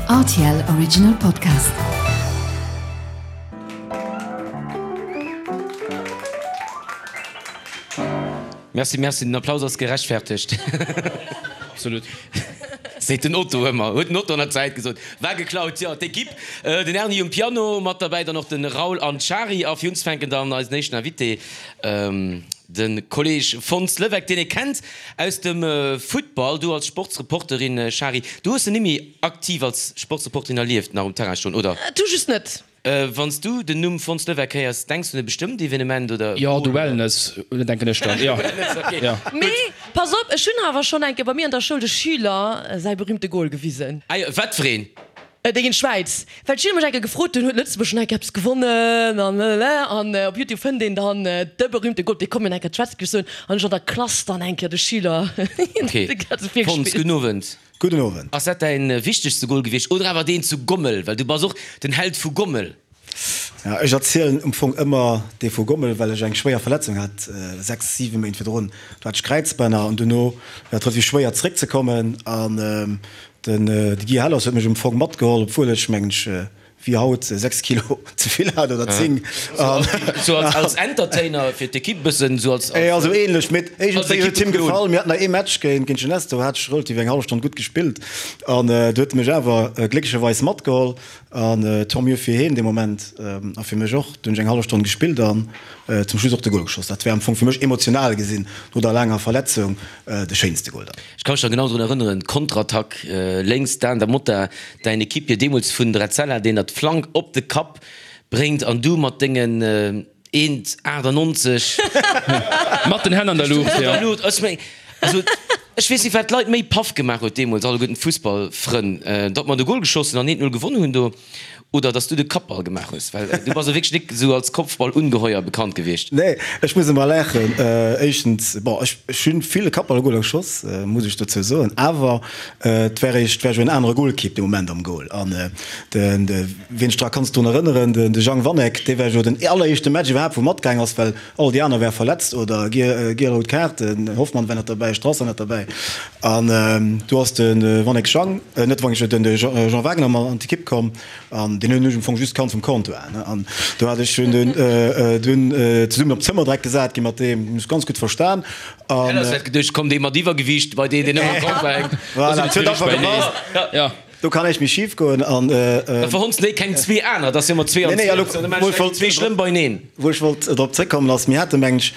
Rtl Original Podcast. Merci, merci, den Applaus ass gerechtfertegt. Absolut. Seet den Otto ëmmer, huet den Otto an der Zäit gesot. War geklaut, jo, d'Equipe, den Erny um Piano, mat derbäi dann och de Raoul an d'Shari. A fir unzefänken dann eisen éischten Invité, de Kolleg Fons Levecq, deen ee kennt aus dem Futtball. Du als Sportsreporterin, Shari, du hues en nimmi aktiv als Sportsreporterin erlieft, nach um Terrain stoen, oder? Du just net. Wann s du den Numm Fons Levecq héiers, denks du un e bestëmmt Evenement oder? Jo, du Wellness, denken ech dann, jo. Jo. Mee pass op, ech hunn awer schonn eng Kéier bei mir an der Schoul de Schüler säi berühmte Goal gewisen. Ah jo, wat fir een? Dee géint d'Schwäiz. Well d'Schüler mech eng Kéier gefrot hunn, huet Lëtzebuerg schonn eng Kéier eppes gewonnen an lalala. An op Youtube fënnt een dann de berühmte Goal, dee komm mir eng Kéier d'Schwätz soen. An ech an der Klass dann eng Kéier de Schüler Ok. de ganze Fons, virgespillt. gudden Owend. Gudden Owend. Ass dat däin wichtegste Goal gewiescht oder awer deen zu Gommel? Well du bass och den Held vu Gommel. Ja, ech erzielen um Fong ëmmer dee vu Gommel, well ech eng schwéier Verletzung hat, 6, 7 Méint virdrun. Do hat ech Kräizbänner an duerno war et relativ schwéier zeréckzekommen an den Guy Hellers huet mech um Fong matgeholl, obwuel ech mengen ech wéi haut 6 Kilo ze vill hat oder 10. Sou als Entertainer fir d'Ekipp bëssen, sou als. Jo, sou ähnlech, mee iergendwéi huet him gefall. Mir haten nach ee Match géint Jeunesse, do hat ech relativ eng hallef Stonn gutt gespillt an do huet e mech awer glécklecherweis matgeholl an tant mieux fir hien dee Moment a fir mech och. Do hunn ech eng hallef Stonn gespillt an zum Schluss och de Gol geschoss. Dat war am Fong fir mech emotional gesinn no der laanger Verletzung de schéinste Gol dann. Ech ka mech nach genau drun erënneren, Konterattack lénks, Dan Da Motta, däin Equipier deemools vun Drezella, deen der d'Flank op de Kapp bréngt an du mat dengen 1,98. Mat den Hänn an der Luucht, jo. Also, ech weess net, wat d'Leit méi paff gemaach huet deemools, alleguerten d'Fussballfrënn, datt mer de Gol geschoss hunn an 1, 0 gewonnen hunn do. Oder dass du de Kappball gemaach hues, well du bass jo wierklech nik esou als Kopfballungeheuer bekannt gewiescht. Nee, ech muss ëmmer laachen. Éischtens, bon, ech ech hunn vill Kappballgoler geschoss, muss ech dozou soen, awer et war eréischt, war jo en anere Golkipp dee Moment am Goal. An den, de wien sech dra kanns drun erënneren, den de Jang Wanek, dee war jo den alleréischte Match iwwerhaapt wou matgaang ass, well all déi aner ware verletzt oder giel rout Kaart, den Hoffmann war net derbäi, Strasser net derbäi. An do ass de Wanek Jang, net Wanek, den Jean Wagner mat an d'Ekipp komm an deen hunn ech am Fong just kannt vum Comptoir. An do hat ech hunn dunn dunn zesummen op d'Zëmmer direkt gesat gi mat deem, hunn ech ganz gutt verstan. An. Hellers hätt geduecht, komm dee mat Iwwergewiicht bei deen, deen ëmmer am Comptoir hänkt. Voilà, et huet einfach gepasst. Do kann näischt méi schif goen an. Da verhonns de keng zwee aner, et ass jo ëmmer zwee an zwee. Da maachen ech zwee schlëmm beineen. Wou ech wollt drop zréckkommen ass, mir hate mengen ech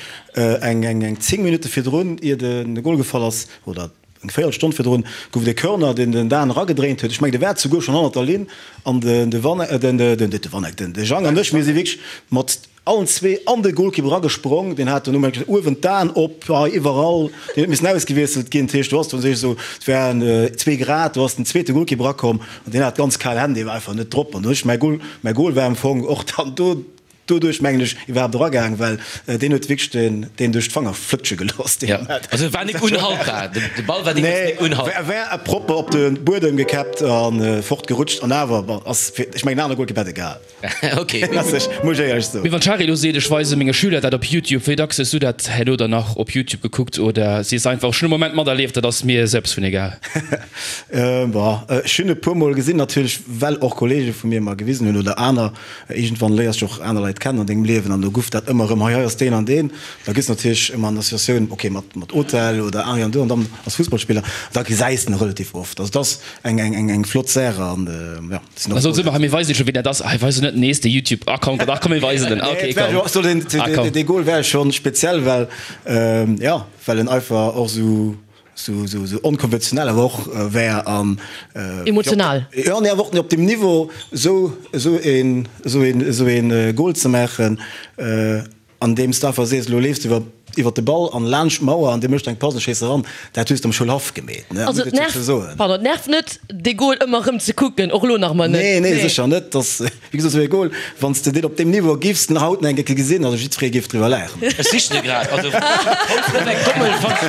eng eng 10 Minutte virdrun, ier de Gol gefall ass, oder eng Véierelstonn virdrun, gouf et e Corner, deen den Dan eragedréint huet. Ech mengen, de war souguer schonn hannert der Linn an de Wanek, den de Wanek, den de Jang an ech, mir si wierklech mat allen zwee an de Golkipp eragesprong. Deen hat dono mengen ech uewen d'Aen op, hei iwwerall, deen huet missen ausgewiesselt ginn. Dat heescht, do ass dann esou, et waren zwee Grad, do ass den zweete Golkipp erakomm an deen hat ganz kal Hänn, dee war einfach net drop. An do hunn ech mäi Gol, mäi Gol war am Fong och dann do. Doduerch mengen ech iwwerhaapt eragaang, well deen huet wierklech den deen duerch d'Fanger flëtsche gelooss dee Moment. Also e war nik unhaltbar, de Ball war deemools nik unhaltbar. Nee, war propper op de Buedem gekäppt a fort gerutscht an awer, bon, ass fir, ech mengen en anere Golkipp hätt e gehal. Ok. Ass ech, muss ech éierlech soen. Mee wann d'Shari elo seet, ech weise menge Schüler dat op Youtube, wéi dacks hues du dat herno dann nach op Youtube gekuckt oder sees einfach, ech hunn e Moment materlieft, dat ass mir selbst vun egal? Bon, ech hunn e puer mol gesinn natierlech, well och Kollege vu mir mer gewisen hunn oder aner. Iergendwann léiers de och aner Leit kennen an dengem Liewen an do guff dat ëmmer erëm, hei, hei ass deen an deen. Da gëss natierlech ëmmer an Associatioun, ok, mat, mat Hotel oder hei an do an dann als Fussballspiller, da gesäis de en relativ oft. Also et ass eng, eng, eng, eng flott Saach an jo, sinn och Da soss ëmmer, hei mir weisen scho wien dat ass, hei weisen net nees de Youtube Account, ach komm mir weisen en, ok komm. Also deen, deen, dee Goal war schonn speziell, well jo, well en einfach och esou sou sou sou onkonventionell awer och wär an Emotional. Jo, nee, awer och op deem Niveau sou sou een sou een sou een Goal ze maachen, andeems de einfach sees, elo leefs de iwwer iwwer de Ball an laanscht d'Mauer an dee mécht eng Pass an schéiss eran, dat hues de am Schoulhaff gemeet, ne, Also muss et ech nervt, dozou soen. pardon, et nervt net dee Goal ëmmer erëm ze kucken, och elo nach emmer net. Nee, nee, sécher net. Dass Wéi gesot, esou ee Goal, wann s de deen op deem Niveau giffs den haut nach eng Kéier gesinn, also jiddweree géif driwwer laachen. Ech sichen e grad, also Fons Levesque Gommel Fons.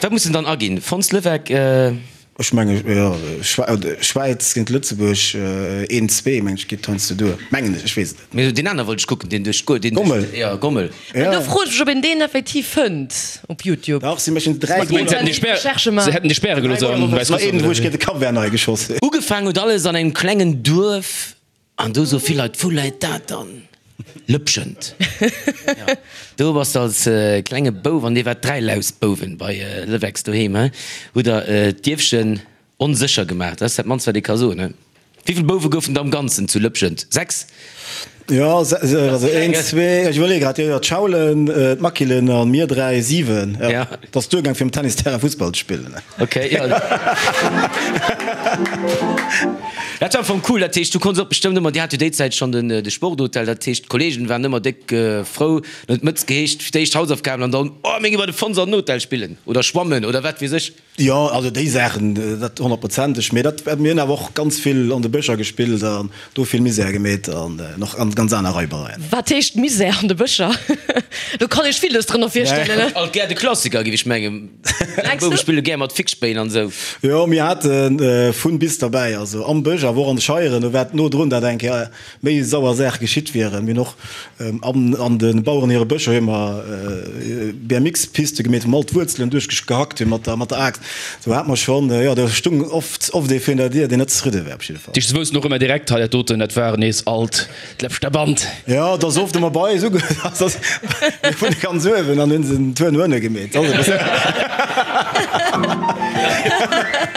Wat muss en dann aginn? Fons Levesque. Ech menge jo, Schwäiz géint Lëtzebuerg, een, zwee meng ech geet heiansdo duer, mengen ech, ech weess et net. Mee deen aner wollt ech kucken, deen duerch d'Goal, deen Gommel, jo Gommel. Mä do froe ech mech, ob een deen effektiv fënnt op Youtube. Dach, si méchen 3 Du mengs, se hätten déi Spär, se hätten déi späre gelooss an Wäiss Russland Een, wou oder ech wéi? géint de Cap Vert nei geschoss hunn. Ugefaangen huet alles an engem klengen Duerf An do soe vill Leit, Wou läit dat dann? Lëpschent. Jo, do bass de als klenge Bouf, an dir waart 3 Lausbouwen bei Lewex doheem, he? Hutt der d'Dierfchen onsécher gemaach. Dat ass dat mannst, wat ee ka soen, he? Wéivill Bouwe goufen der am Ganzen zu Lëpschent? 6? Jo, also een, zwee, ech iwwerleeë grad, jo, jo, d'Schaulen, d'Makilen a mir 3, 7, jo. Dat ass duergaang fir um Tennisterrain Fussball ze spillen. Ok, jo. Dat war am Fong cool, dat heescht du konns och bestëmmt ëmmer, dir hat jo déi Zäit schonn den de Sporthotel, dat heescht d'Kollegen waren ëmmer déck frou, dann huet d'Mëtz geheescht fir d'éischt Hausaufgaben an dann, oh mir gi bei de Fons an den Hotel spillen oder schwammen oder wat weess ech. Jo, also déi Saachen, dat honnertprozenteg, mee dat, mir hunn awer och ganz vill an de Bëscher gespillt an do vill Misär gemeet an och an ganz aner Raibereien. Wat heescht Misär an de Bëscher? Do kann ech villes drënner virstellen. Alt gär de Klassiker, géif ech mengen. Bouwe spille gär mat Fixspéin an esou. Jo, mir hate vun bis derbäi, also am Bësch, awer och an de Scheieren. Do war et no drun, dat eng Kéier méi sauer Saache geschitt wieren. Mir hunn och an de Baueren hire Bëscher hu mer BMX-Piste gemeet, wou mer all d'Wuerzelen duerchgehackt hu mat der Aaxt. Do hat mer schonn, jo, do stung oft oft ee virun der Dier, deen net zefridde war op jidde Fall. Déi woussten och ëmmer direkt, hei dat doten, dat war nees alt D'Lëpschter Band. Jo, et ass oft ëmmer bei eis uge, mir wunne ganz uewen an hunn se den Tour no ënne gemeet. Dat ass e bëssen.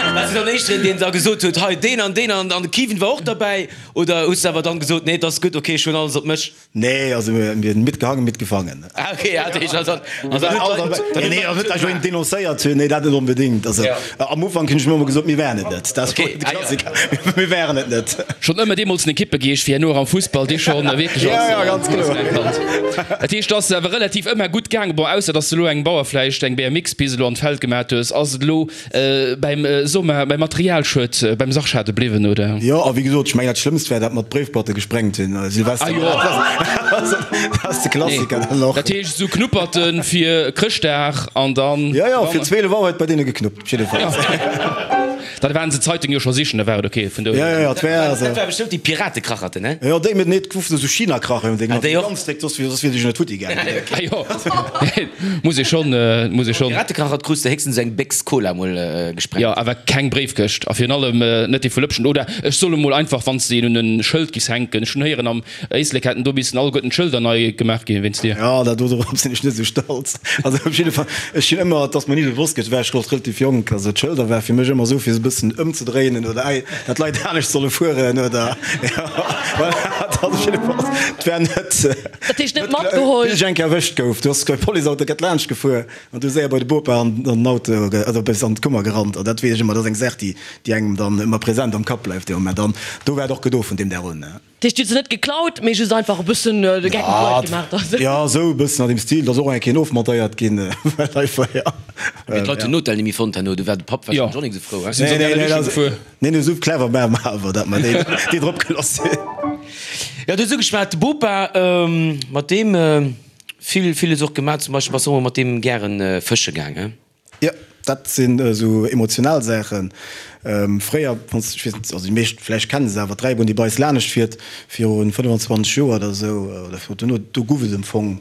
Waars du dann éischteren, deen da gesot huet, hei deen an deen an de Kiven war och derbäi? Oder hues de awer dann gesot, nee, et ass gutt, ok, ech hunn alles op mech? Nee, also mir hunn mitgehangen, mitgefangen. Ah ok, ja, dat heescht also, also dann huet d'Leit. Nee, also net, datt ech elo een denoncéiert hunn, nee, dat net onbedéngt. Also am Ufank hunn ech mir ëmmer gesot, mir wären et net. Dat ass de Klassiker, mir wären et net. Schonn ëmmer deemools en Ekippegeescht fir herno och am Fussball, dee schonn wierklech als erkannt. Dat heescht, et ass awer relativ ëmmer gutt gaangen. Bon, ausser datt s de elo engem Bauer vläicht eng BMX-Pist elo an d'Feld gemat hues. Ass et elo bäim Sommer, beim Materialschued, beim Sachschade bliwwen, oder? Jo, a wéi gesot, ech mengen dat Schlëmmst war dat mer d'Bréifboîte gesprengt hunn, Silvester. Ah jo. Dat ass de Klassiker dann och. Dat heescht esou Knupperten fir Chrëschtdag an dann. Jo, jo, fir 12 Auer huet bei deene geknuppt, op jidde Fall. Da waren se d'Zeitung jo scho sichen, da war et ok vun dohier. Jo, jo, et war also. Dat war bestëmmt déi Piratekracherten, he? Jo, déi, mee nee, et goufen esou China-Krachen, déi Ah, déi och. ganz déck, soss wier soss wier déi jo net futti gaangen. Ah jo, muss ee schonn, muss ee schonn. Piratekrachert krus de héchstens eng Béchs Cola mol gesprengt. Jo, awer keng Bréifkëscht a virun allem net déi vu Lëpschen. Oder ech soll emol einfach, wann s de een un e Schëld giss hänken, ech hunn héieren am Éislek hätten do missen alleguerten d'Schëlder nei gemaach ginn wéinst dir. Jo, dat do dorop sinn ech net esou stolz. Also op jidde Fall, ech hunn ëmmer, et ass mer ni bewosst ginn, war ech och relativ jonk, also d'Schëlder war fir mech ëmmer esou fir se e bëssen ëmzedréinen oder ei, dat d'Leit anescht solle fueren oder jo, voilà, dat ass op jidde Fall, et war net, Dat heescht net matgeholl? Bis ech eng Kéier erwëscht gouf, do ass e Policeauto grad laanscht gefuer an du séier bei de Bopa an den Auto, also bis an d'Kummer gerannt an dat weess ech ëmmer, dat ass eng Saach, déi, déi engem dann ëmmer present am Kapp bleift dee Moment an do war et och gedo vun deem Dag un. Dat heescht, dir hutt se net geklaut, mee just einfach e bëssen de Geck mat Leit gemaach dann? Jo, esou e bëssen an deem Stil. Et ass och eng Kéier ofmontéiert ginn, well einfach, jo. Mee d'Leit hunn den Hotel nemmi fonnt herno, do war de Papp warscheinlech och nik esou frou, he? Nee, nee, dat ass, nee, nee, esou clever war mer awer, datt mer déi, déi drop gelooss hunn. Jo, du hues ugeschwat, de Bopa, mat deem vill, villes och gemaach. Zum Beispill bass de och emol mat deem gären fësche gaang, he? Jo, dat sinn esou emotional Saachen. Fréier, wann s, ech weess net, also déi meescht vläicht kennen se awer, d'Dräibunn, déi bei eis lanescht fiert, viru 25 Joer oder esou, oder viru duerno, do guff et am Fong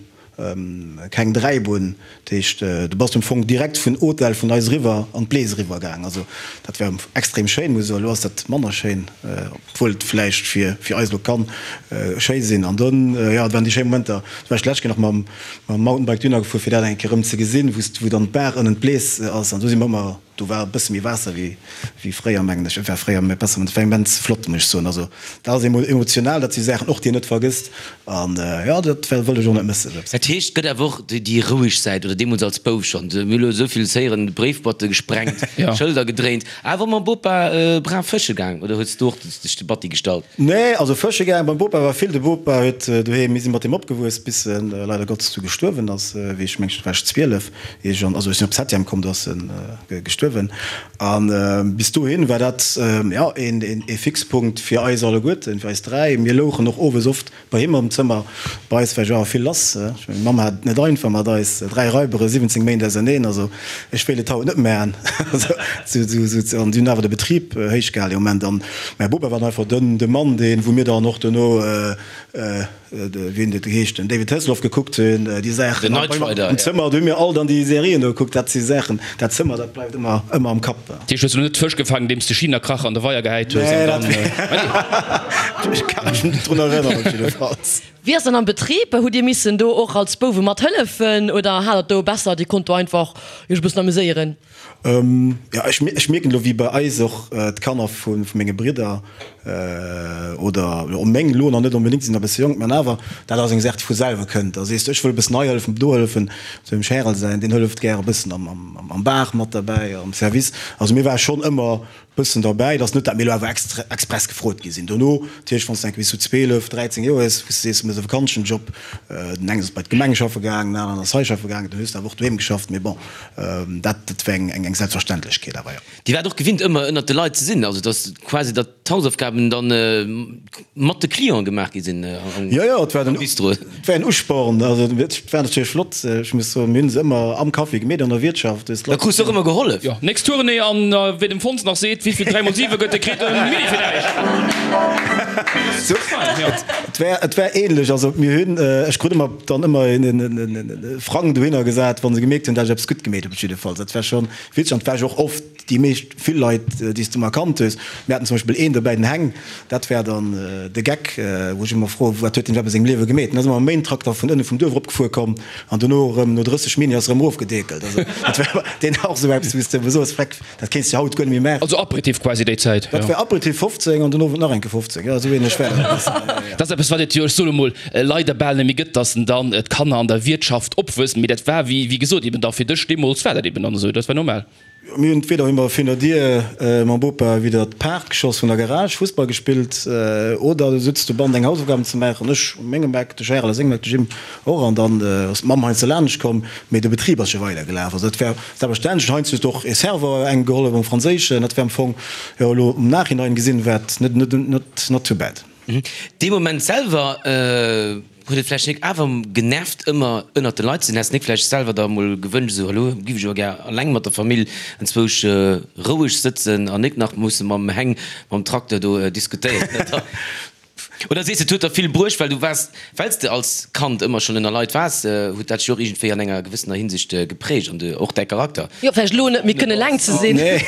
keng Dräibunn. Dat heescht, du bass am Fong direkt vun Hotel vun eis eriwwer an d'Blees eriwwer gaang. Also dat war extrem schéin, muss ech soen. Elo ass dat manner schéin, obwuel et vläicht fir eis elo kann schéi sinn. An dunn, jo, dat waren déi schéi Momenter. Do war ech d'lescht Kéier nach mam Mam Mountainbike dunner gefuer fir dat eng Kéier rëm ze gesinn, wou wou dann d'Baach ënnen d'Blees ass an do si mer ëmmer, do war e bësse méi Waasser wéi wéi fréier mengen ech, et war fréier méi besser, et war immens flott muss ech soen, also dat ass emo emotional, dat si Saachen och déi een net vergësst an jo dat well wëll ech och net mëssen. Dat heescht, et gëtt awer och déi roueg Säit, oder deemools als Bouf schonn, mir hu elo esou vill héieren, Bréifboîte gesprengt, Schëlder gedréint, awer mam Bopa brav fësche gaang, oder hues du och dech de Batti gestallt? Nee, also fësche gaang beim Bopa war vill. De Bopa huet doheem, mir si mat deem opgewuess, bis en leider Gottes du gestuerwen ass, wéi ech mengen, war ech 12, ier ech an, also ech sinn op Septième komm, do ass en gestuerwen. gestuerwen. A bis dohin war dat, jo, een Fixpunkt fir eis alleguerten, fir eis 3. Mir louchen och owes oft bei him am Zëmmer. Bei eis war jo awer vill lass. Ech mengen, meng Mamm hat et net einfach mat eis 3 Raibere, 17 Méint auserneen. Also ech wéilt et haut net méi. An si hunn awer de Betrib héich gehalen dee Moment. An mäi Bopa war dann einfach den de Mann, deen, wou mir dann och duerno, wéi hunn déi geheescht, den David Hasselhoff gekuckt hunn, déi Saachen. Den Knight Rider, Am Zëmmer, do hu mir all dann déi Serien do gekuckt. Dat si Saachen, dat Zëmmer, dat bleift ëmmer, ëmmer am Kapp. Dat heescht, hues du net Fësch gefaangen, andeems de Chinakrach an de Weier gehäit hues an dann. Ech ka mech net drun erënneren, op jiddefalls. Wéi ass dann am Betrib? Hutt Dir missen do och als Bouwe mat hëllefen oder hat der do besser, Dir konnt do einfach Iech e bëssen amuséieren? Jo, ech mierken elo, wéi bei eis och d'Kanner vu menge Bridder oder och meng elo nach net onbedéngt, si sinn nach e bësse jonk, mä awer, dat ass eng Saach, déi vu selwer kënnt. Da sees de, ech wëll e bëssen hei hëllefen, do hëllefen. Sou dem Charel säin, deen hëlleft gär e bëssen am Bar mat derbäi, am Service. Also mir ware schonn ëmmer bëssen derbäi. Et ass net, dat mir elo awer extra express gefrot gi sinn dono. Natierlech, wann s de enke bis sou 12, 13 Joer hues, wou s de sees, du méchs e Vakanzenjob, den engen ass bei d'Gemeng schaffe gaangen, den aneren ass hei schaffe gaangen, dann hues de awer och doheem geschafft. Mee bon, dat dat war eng eng Selbstverständlechkeet awer, jo. Dir waart och gewinnt ëmmer ënnert de Leit ze sinn, also dass quasi datt d'Hausaufgaben dann mat de Clienten gemaach gi sinn am Jo, jo, et war den, Bistro. Et war en Usporn, also et war natierlech flott. Ech muss soen, mir hunn se ëmmer am Café gemeet, an der Wiertschaft. Da krus de och ëmmer gehollef. Jo, nächst Tournée an wéi dem Fons nach seet, wéivill 3 mol 7 gëtt, dee kritt e Mini fir näischt. Et war, et war ähnlech, also mir hunn, ech krut ëmmer dann ëmmer e Frang dohinner gesat, wa se gemierkt hunn, dat ech eppes gutt gemeet hunn, op jiddefalls. Dat war schonn witzeg an et war jo och oft déi meescht, vill Leit, déi s de emmer kannt hues. Mir haten zum Beispill een dobäi, den Heng, dat war dann de Geck, wou ech ëmmer froen, wat huet deen iwwerhaapt a sengem Liewe gemeet? Den ass ëmmer mam Maintrakter vun ënne vum Duerf eropgefuer komm an dono erëm no 30 Min. Ass er erëm erofgedeekelt. Also dat war deen och esou eppes, wou s de ëmmer soos, Freck, dat kéints de haut guer net méi maachen. Also Aperitif quasi déi Zäit, jo. Dat war Aperitif 15 an den Owend nach eng Kéier 15, jo, esou ähnlech war dat. Dat ass eppes, wat et jo, ech soen emol, leider bal net méi gëtt, dass dann d'Kanner an der Wiertschaft opwuessen. Mee dat war, wéi gesot, eben da fir dech deemools war dat eben dann esou, dat war normal. Mir hunn entweder hu mer virun der Dier mam Bopa widder d'Paart geschoss vun der Garage, Fussball gespillt oder du sutz dobannen deng Hausaufgaben ze maachen, ech u mengem Eck, de Charel a sengem Eck, de Jim och an dann ass d'Mamm heiansdo laanscht komm, mee de Betrib ass jo weider gelaf. Also dat war selbstverständlech. Heiansdo huet och e Serveur engem gehollef am Franséischen, dat war am Fong, jo elo am Nachhinein gesinn, war et net net not too bad. Dee Moment selwer huet et vläicht nik awer genervt ëmmer ënnert de Leit ze sinn? Häss nik vläicht selwer der emol gewënscht esou hallo giff ech awer gär alleng mat der Famill enzwousch roueg sëtzen an nik nach musse mam Heng mam Trakter do diskutéieren oder? Oder sees de et huet der vill bruecht well du waars wells de als Kand ëmmer schonn ënner Leit waars huet dat dech och iergendwéi an enger gewëssener Hinsicht geprägt an de och däi Charakter? Jo vläicht elo net méi kënne eleng ze sinn. Nee.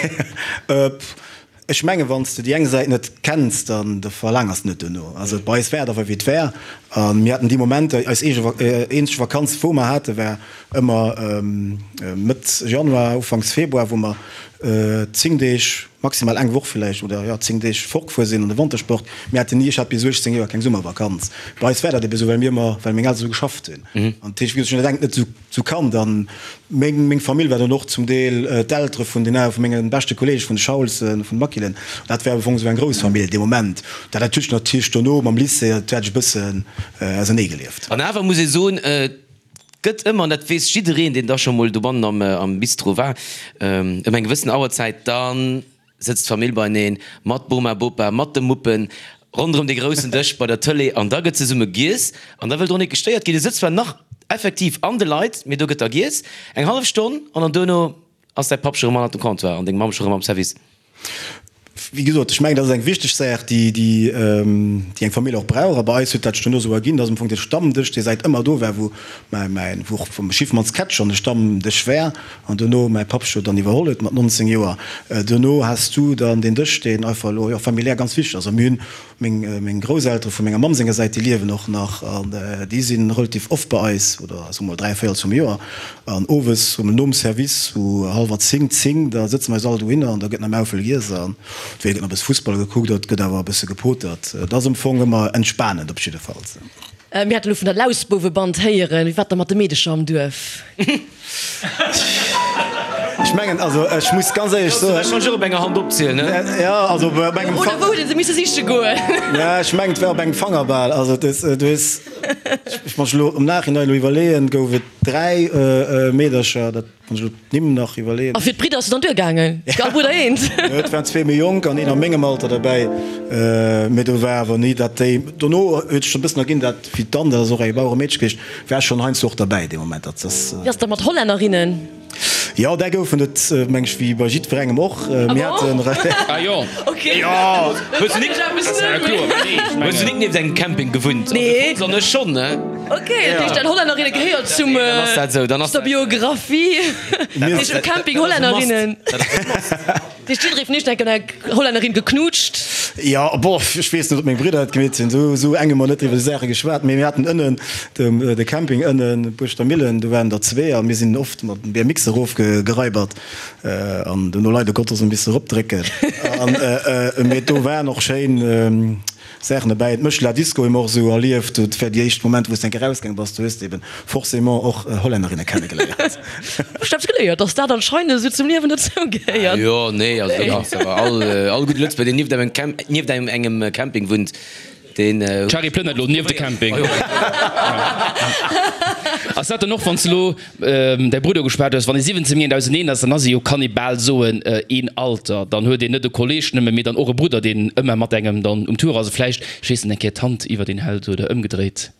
Ech mengen, wann s de déi eng Säit net kenns, dann da verlaangers de net duerno. Also bei eis war et einfach wéi et war a mir haten déi Momenter, eis eege eenzeg Vakanz wou mer hate war ëmmer Mëtt Januar, Ufanks Februar, wou mer 10 Deeg, maximal eng Woch villäicht oder jo 10 Deeg fortgefuer sinn an de Wantersport. Mir haten ni, ech hat bis 18 Joer keng Summervakanz. Bei eis war dat ebe sou, well mir ëmmer, well meng Elteren esou geschafft hunn. An dat heescht, wéi gesot, ech hunn dat engt net esou Sou kann dann meng meng Famill war dann och zum Deel d'Eltere vun den vun menge beschte Kollege vun de Schaulsen, vun de Makilen. Dat war am Fong sou eng grouss Famill dee Moment. Dat hat sech natierlech dono mam Lycée, dat hat ech e bëssen ausernee gelieft. An awer muss ee soen, et gëtt ëmmer, an dat weess jiddereen, deen da scho mol dobannen am am Bistro war, ëm eng gewëssen Auerzäit, da sëtzt d'Famill beineen, mat Boma, Bopa, mat de Muppen, ronderëm dee groussen Dësch bei der Tëlee an da gëtt zesumme giess an da wëll drun net gestéiert ginn. Du sëtz zwar nach effektiv an de Leit, mee do gëtt da giess, eng hallef Stonn an dann duerno ass däi Papp scho rëm hannert dem Comptoir an deng Mamm scho rëm am Service. Wéi gesot, ech mengen, dat ass eng wichteg Saach, déi, déi, déi eng Famill och brauch. A bei eis huet dat sech duerno esou erginn, dass am Fong dee Stammdësch, dee säit ëmmer do war, wou mäi, mäi, wou och vum Schiffmanns Kätt schonn e Stammdësch war, An dono, mäi Papp huet dann iwwerholl huet mat 19 Joer, dono has du dann deen Dësch, deen einfach elo, jo, familiär ganz wichteg ass. A mir hunn meng, meng Grousseltere vu menger Mamm senger Säit, déi liewen och nach an déi si relativ oft bei eis, oder soe mol 3 véierels vum Joer. An owes, soe mol nom Service, sou hallwer 10, 10, da sëtze mer eis all dohinner an da gëtt nach Maufel giess an entweder gëtt nach e bësse Fussball gekuckt oder et gëtt awer e bësse gepotert. Et ass am Fong ëmmer entspanend op jiddefalls. Mir hate lo vun der Lausbouweband héieren. Wéi war et da mat de Meedecher am Duerf? Ech. Ech mengen, also ech muss ganz éierlech soen. Ech kann ech och op enger Hand opzielen, ne? Jo, also op engem Oder wou huet ee se misse siche goen? Ja, ech mengen, et war op engem Fanger bal. Also du hues, ech muss elo am Nachhinein elo iwwerleeën, gouf et 3 Meedercher, dat muss ech elo d'Nimm nach iwwerleeën. A fir d'Bridder ass et dann duergaangen? All Brudder eent? Jo, et waren zwee méi jonk an een a mengem Alter derbäi. Mee do war awer ni, dat déi, dono huet sech e bëssen erginn, dat wéi d'Anne, dat ass och eng Baueremeedche gewiescht, war schonn heiansdo och derbäi dee Moment. Dat ass. Wéi ass dat mat Hollännerinnen? Jo, där goufen et, meng ech, wéi bei jiddwerengem och. Mir haten. Ah jo. Ok. Jo. Hues du nik, hues du nik nieft engem Camping gewunnt? Nee. Also ech schonn, ne? Ok, dat heescht, Hollännerinne gehéiert zum, Dann ass dat esou, dann ass zur Biographie. Dat heescht, um Camping Hollännerinnen. Dat ass e Must. Dat heescht, jidderee vun iech huet eng Hollännerin geknutscht? Jo, bof, ech weess net, ob meng Bridder dat gemeet hunn. Esou, esou eng hu mer net iwwer déi Saache geschwat. Mee mir haten ënnen de, de Camping ënnen, Buerschter Millen, do waren der zwee a mir sinn oft mat dem BMX erofgeraibert an dono leider Gottes e misse eropdrécken. An, mee do waren och schéin Saachen derbäi. D'Mëschla Disco hu mer och esou erlieft. Dat war déi éischt Moment, wou s de eng Kéier erausgaange bass. Do hues de eben forcément och Hollännerinne kennegeléiert. Ech hat geléiert, dass dat anscheinend esou zum Liewen dozou gehéiert. Jo, nee, also do kanns de awer all, all gudde Lëtzebuerger, deen nieft engem Camp, nieft engem Camping wunnt, deen. D'Shari plënnert elo nieft de Camping. Ass dat dann och, wann s de elo Däi Brudder gespaart hues, wann ee 17 Méint auseneen ass, dann ass ee jo, kann ee bal soen, een Alter. Dann huet een net e Kolleeg nëmme, mee dann och e Brudder, deen ëmmer mat engem dann um Tour ass a vläicht, ech weess net, eng Kéier d'Hand iwwert een hält oder ëmgedréit.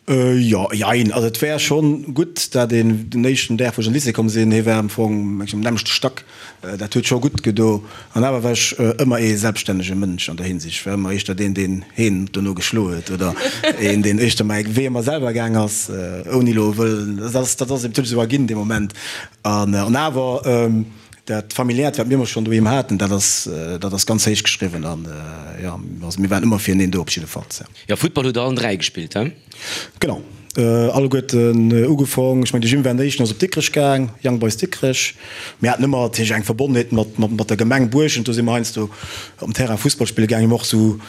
Jo, jein. Also et wär schonn gutt, dat een den éischten Dag, wou ech an de Lycée komm sinn, hie war am Fong, meng ech, am nämmlechte Stack, dat huet scho gutt gedo. An awer war ech ëmmer ee selbststännege Mënsch an der Hinsicht. Ech war ëmmer éischter deen, deen heen dono geschloe huet oder een, deen éischter mäi Wee ëmmer selwer gaang ass, ouni elo wëllen, dat ass, dat ass eben natierlech esou erginn dee Moment. An awer dat Familiäert, wat mir ëmmer schonn doheem haten, dat ass, dat ass ganz héich geschriwwen. An jo, also mir waren ëmmer fireneen do op jiddefalls. Jo, Futtball hutt der allen 3 gespillt, he? Genau, alleguerten ugefong. Ech mengen, de Jim war den éischten, ass op Dikrech gaang, Young Boys Dikrech. Mir haten ëmmer natierlech eng Verbonnenheet mat, mat der Gemeng Buerschent. Do si mer heiansdo op den Terrain Fussball spille gaang. Mir hu och sou,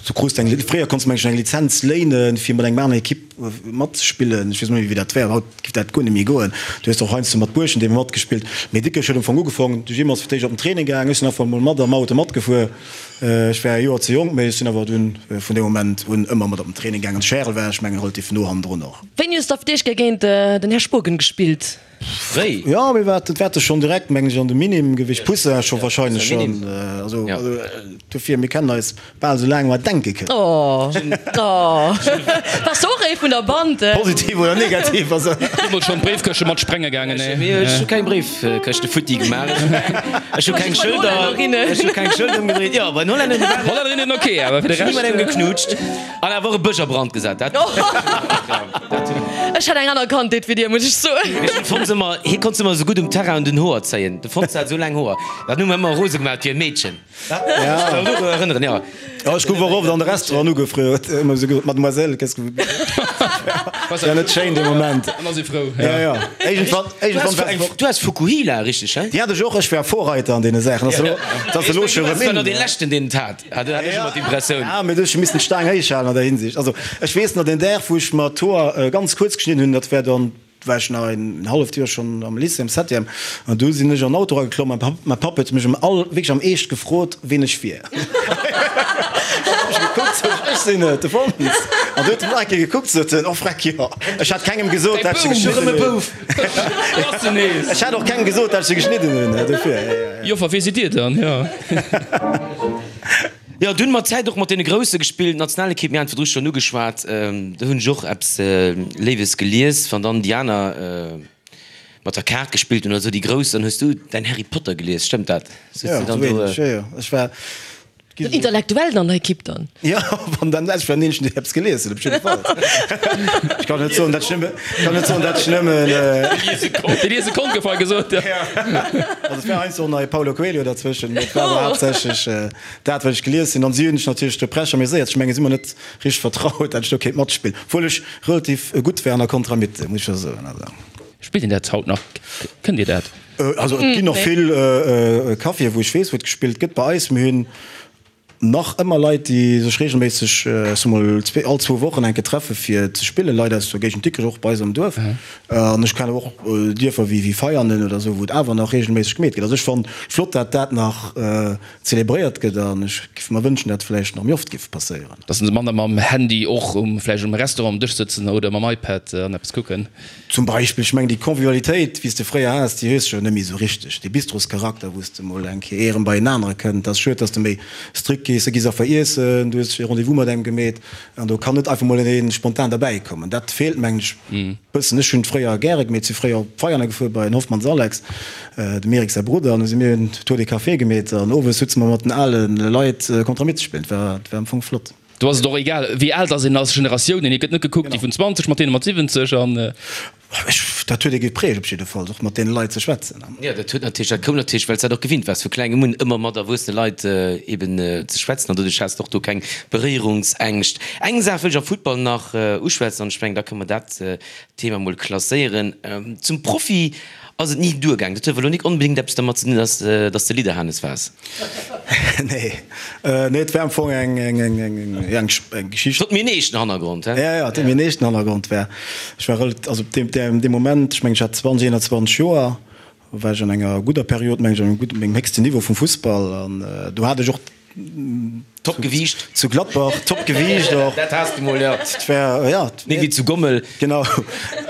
du krus eng, fréier konns du mengen ech eng Lizenz léinen, fir mat engem aneren Ekipp matzespillen. Ech weess net méi, wéi dat war. Haut giff dat guer net méi goen. Du hues och heiansdo mat Buerschent ebe matgespillt. Mee Dikrech huet am Fong ugefong. De Jim ass fir d'éischt op den Training gaang, ech sinn einfach emol mat am Auto matgefuer. Ech war e Joer ze jonk, mee ech sinn awer dunn vun deem Moment un ëmmer mat op den Training gaangen. De Charel war, ech mengen, relativ no hannendrun och. Wéini hues de auf d'éischt Kéier géint den Här Spogen gespillt? Fréi. Jo, mir war, dat war schonn direkt, mengen ech, an de Minim gewiescht. Poussin scho wahrscheinlech schonn. Also dofir, mir kennen eis bal esou laang mer denke kënnen. Oh, oh. Wars de och ee vun der Band? Positiv oder negativ, also. Deemools schonn d'Bréifkëschte mat sprenge gaangen, nee? Mee ech hu keng Bréifkëschte futti gemaach. Ech hu keng Schëlder, ech hu keng Schëlder ëmgedréit. Jo, bei den Hollännerinnen war. Hollännerinnen ok, awer fir de Rescht. Ech hu mat engem geknutscht an awer och e Bësch a Brand gesat. Dat. Ech hat eng aner Kandheet wéi dir, muss ech soen. Mee den Fons ëmmer, hie konnt ëmmer esou gutt um Terrain un den Hoer zéien. De Fons hat esou laang Hoer. Dat hu mer ëmmer rose gemaach wéi e Meedchen. Ja. Ja. Ja, ech gouf och oft an de Restaurant ugefrot, ëmmer esou gesot, Mademoiselle, qu'est-ce que vous buvez? Ja, net schéin dee Moment. An ass ee frou. Ja, ja. Iergendwann, iergendwann war eng. Du has Fukuhila, richteg, he? Déi hat ech och, ech war Vorreiter an deene Saachen. Ass elo, dat ass elo scho rëm in. Du war nach dee leschten, deen et hat, hat ech ëmmer d'Impressioun. Ja, mee du hues scho missen d'Staang héich halen an der Hinsicht. Also, ech weess nach, deen Dag, wou ech mer d'Hoer ganz kuerz geschnidden hunn, dat war dann war ech nach en halleft Joer schonn am Lycée, am Septième, an du sinn ech an den Auto erageklomm an mäi Papp huet mech am all, wierklech am Eescht gefrot, ween ech wier. An hu ech gekuckt, sot ech, ech sinn et, de Fons. An du huet en nach eng Kéier gekuckt, sot en, oh freck, jo. Ech hat kengem gesot, dat ech se geschnidden hunn. Ech hat och kengem gesot, dat ech se geschnidden hunn, dofir. Joffer, wee sidd Dir dann? Jo. Jo, dunn mat Zäit och mat deene Grousse gespillt, Nationalekipp, mir haten virdru schonn ugeschwat, do hunn ech och eppes Léiwes gelies, wann dann déi aner mat der Kaart gespillt hunn oder esou, déi Grouss, dann hues du däin Harry Potter gelies, stëmmt dat? Jo, esou ähnlech, jo, jo, ech war. Den Intellektuellen an der Ekipp dann? Jo, wann dann, ech war den eenzegen, deen eppes gelies huet, op jidde Fall. Ech kann net soen, dat ech nëmme, kann net soen, dat ech nëmmen. Dee liese konnt, gouf hei gesot, jo. Also et war heiansdo och nach e Paulo Coelho derzwëschen, mee et war awer haaptsächlech. Dat wat ech gelies hunn, an si hunn sech natierlech de Prech ameséiert. Ech mengen, si hu mer net richteg vertraut, dat ech do kéint matspillen, obwuel ech relativ gutt war an der Contramitte, muss ech scho soen. Also. Spillt een dat haut nach? Kënnt Dir dat? Also et ginn nach vill Caféen, wou ech weess, wou et gespillt gëtt. Bei eis, mir hunn. nach ëmmer Leit, déi sech reegelméisseg, ech soe mol all zwou Wochen eng Kéier treffe fir ze spillen, Leit aus der Géigend Dikrech, och bei eis am Duerf. An ech kennen och Dierfer wéi Veianen oder esou, wou et awer nach reegelméisseg gemeet gëtt. Also ech fannen et flott, dat dat nach zelebréiert gëtt an ech giff mer wënschen, dat vläicht nach méi oft giff passéieren. Dass se manner mam Handy och um vläicht um Restaurant um Dësch sëtzen oder mam iPad an eppes kucken. Zum Beispill, ech mengen déi Convivialitéit, wéi s de fréier has, déi hues de jo net méi esou richteg. Dee Bistroscharakter, wou s de mol eng Kéier erëm bei en anere kënnt. Et ass schued, dass de méi strikt gees. Du gees einfach iessen, du hues e Rendez-vous mat engem gemeet an do kann net einfach mol een spontan derbäi kommen. Dat feelt, mengen ech, e bëssen. Ech hunn et fréier gäre gemeet, si fréier op Veianen gefuer bei den Hoffmanns Alex, dem Eric säi Brudder, an du si mir en Tour de Café gemeet an owes sutze mer mat den ale Leit Contramit ze spillen. Et war, et war am Fong flott. Do ass et och egal, wéi al dass een ass, Generatiounen, et gëtt net gekuckt, déi vun 20 mat deene mat 70 an. Ech, dat huet ee geprägt op jidde Fall, och mat deene Leit ze schwätzen. Jo, dat huet natierlech, dat koum natierlech, well s dat och gewinnt waars, vu klengem un ëmmer mat erwuessene Leit eben ze schwätzen an doduerch has de och do keng Beréierungsängscht. Eng Saach wëll ech am Futtball nach uschwätzen an ech mengen, da kënne mer dat Thema mol klasséieren. Zum Profi ass et ni duergaang. Dat huet awer elo nik onbedéngt eppes dermat ze dinn, dass dass de Lidderhanes waars. Nee, nee, et war am Fong eng, eng, eng, eng, eng, eng Geschicht. Et huet méi en eeschten Hannergrond, he? Ja, ja, et huet méi en eeschten Hannergrond. War, ech war rel-, also op deem, deem Moment, ech mengen, ech hat 20, 21 Joer, war ech an enger gudder Period, mengen ech, an engem gudden, mengem héchsten Niveau vum Fussball an do hat ech och Top Gewiicht. Zu Gladbach, top Gewiicht och. Dat has de mol, jo. Et war, ja. Méi wéi zu Gommel. Genau.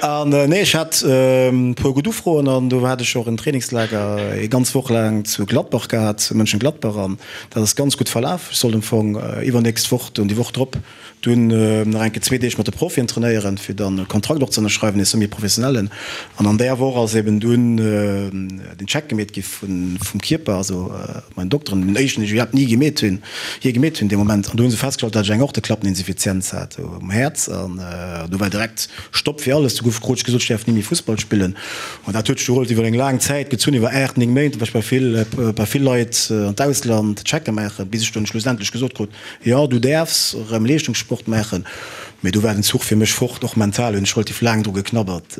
An nee, ech hat e puer gutt Ufroen an do hat ech och en Trainingslager ee ganz Woch laang zu Gladbach gehat, zu Mönchengladbach an dat ass ganz gutt verlaf. Ech sollt am Fong iwwernächst Woch, dunn déi Woch drop, Dunn nach eng Kéier zwee Deeg mat de Profien trainéieren, fir dann e Kontrakt och ze ënnerschreiwen, ee semi-professionellen. An an där Woch ass eben dunn den Check gemeet gi vum Kierper, also meinen Dokteren, den éischten, deen ech iwwerhaapt ni gemeet hunn, jee gemeet hunn dee Moment. An do hu se festgestallt, datt ech eng Aorteklappeninsuffizienz hat um Häerz. An do war direkt Stopp fir alles. Du gouf, krut ech gesot, ech däerf ni méi Fussball spillen. An dat huet sech du relativ iwwer eng laang Zäit gezunn, iwwer 8, 9 Méint, war ech bei vill, bei vill Leit an d'Ausland Checke maachen, bis ech dunn schlussendlech gesot krut, Jo, du däerfs erëm Leeschtungssport maachen, mee do war den Zuch fir mech fort. Och mental hunn ech relativ laang dru geknabbert,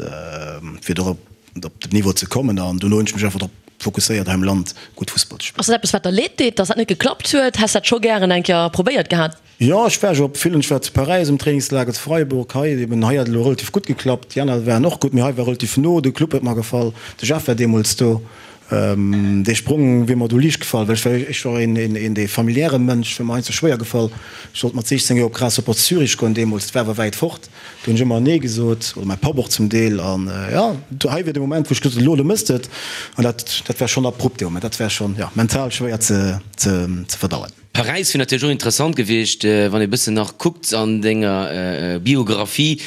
fir do op den Niveau ze kommen. An dono hunn ech mech einfach drop fokusséiert, hei am Land gutt Fussball ze spillen. Ass dat eppes, wat der leed deet, dass dat net geklappt huet? Häss dat scho gären eng Kéier probéiert gehat? Jo, ech war jo op villen. Ech war zu Paräis um Trainingslager, zu Freiburg, hei eben. Hei hat et elo relativ gutt geklappt. Déi aner waren och gutt, mee hei war relativ no. De Club huet mer gefall, de Jeff war deemools do. Dee Sprong wier mer do liicht gefall, well ech war ech war een een dee familiäre Mënsch, wier mer heiansdo schwéier gefall. Ech sollt mat 16 Joer op Grasshopper Zürich goen deemools, dat war awer wäit fort. Do hunn ech ëmmer Nee gesot, oder mäi Papp och zum Deel. An jo, do hei wier de Moment, wou ech gesot hunn, elo, elo mëss de et. An dat dat war schonn abrupt dee Moment, dat war schonn, jo, mental schwéier ze ze ze verdauen. Paräis wier natierlech och interessant gewiescht, wann ee bëssen nach kuckt an denger Biographie.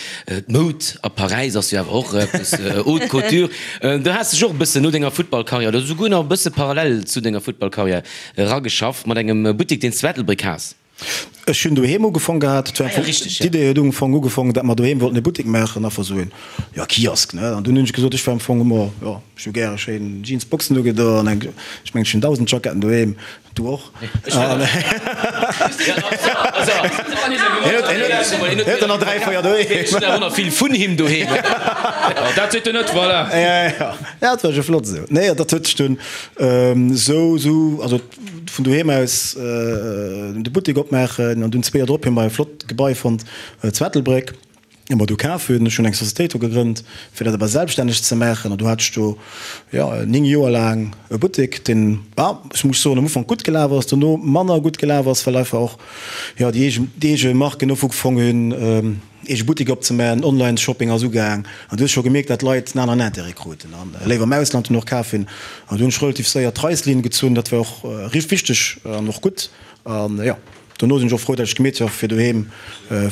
D'Moud a Paräis ass jo awer och eppes Haute Couture. Do has dech och e bëssen no denger Futtballkarriär, oder souguer nach e bësse parallel zu denger Futtballkarriär erageschafft mat engem Buttek, deen s zu Ettelbréck has. Ech hunn doheem ugefong gehat. D'Idee huet um Fong ugefong, datt mer doheem wollten e Buttek maachen, einfach esou een, jo, Kiosk, ne. An dunn hunn ech gesot, ech war am Fong ëmmer, jo, ech hu gäre schéin Jeansboxen ugedo an eng, ech mengen, ech hunn 1.000 Jacketten doheem. Du och? Hien huet der nach 3, 4 doheem. Ech hunn awer nach vill vun him doheem. Dat seet en net, voilà. Ja, ja, dat war jo flott esou. Nee, dat huet sech dunn esou, esou, also vun doheem aus de Buttek opmaachen an dunn zwee Joer drop hu mer e flott Gebai fonnt zu Ettelbréck. Hu mer do kaf hunn. Ech hunn eng Societéit do gegrënnt, fir dat awer selbststänneg ze maachen. An do hat ech do, jo, 9 Joer laang e Buttek, deen, ah, ech muss soen, am Ufank gutt gelaf ass, dono manner gutt gelaf ass, well einfach och, jo, déi eege, déi eege Marken ufgefong hunn, eege Butteker opzemaachen, Online-Shopping ass ugaang. An du hues scho gemierkt, dat d'Leit en aneren Intérêt kruten an léiwer am Ausland dunn och kaf hunn. An do hunn ech relativ séier d'Reißlinn gezunn. Dat war och wichteg an och gutt. An, jo. Dono sinn ech och frou, dat ech gemeet hu fir doheem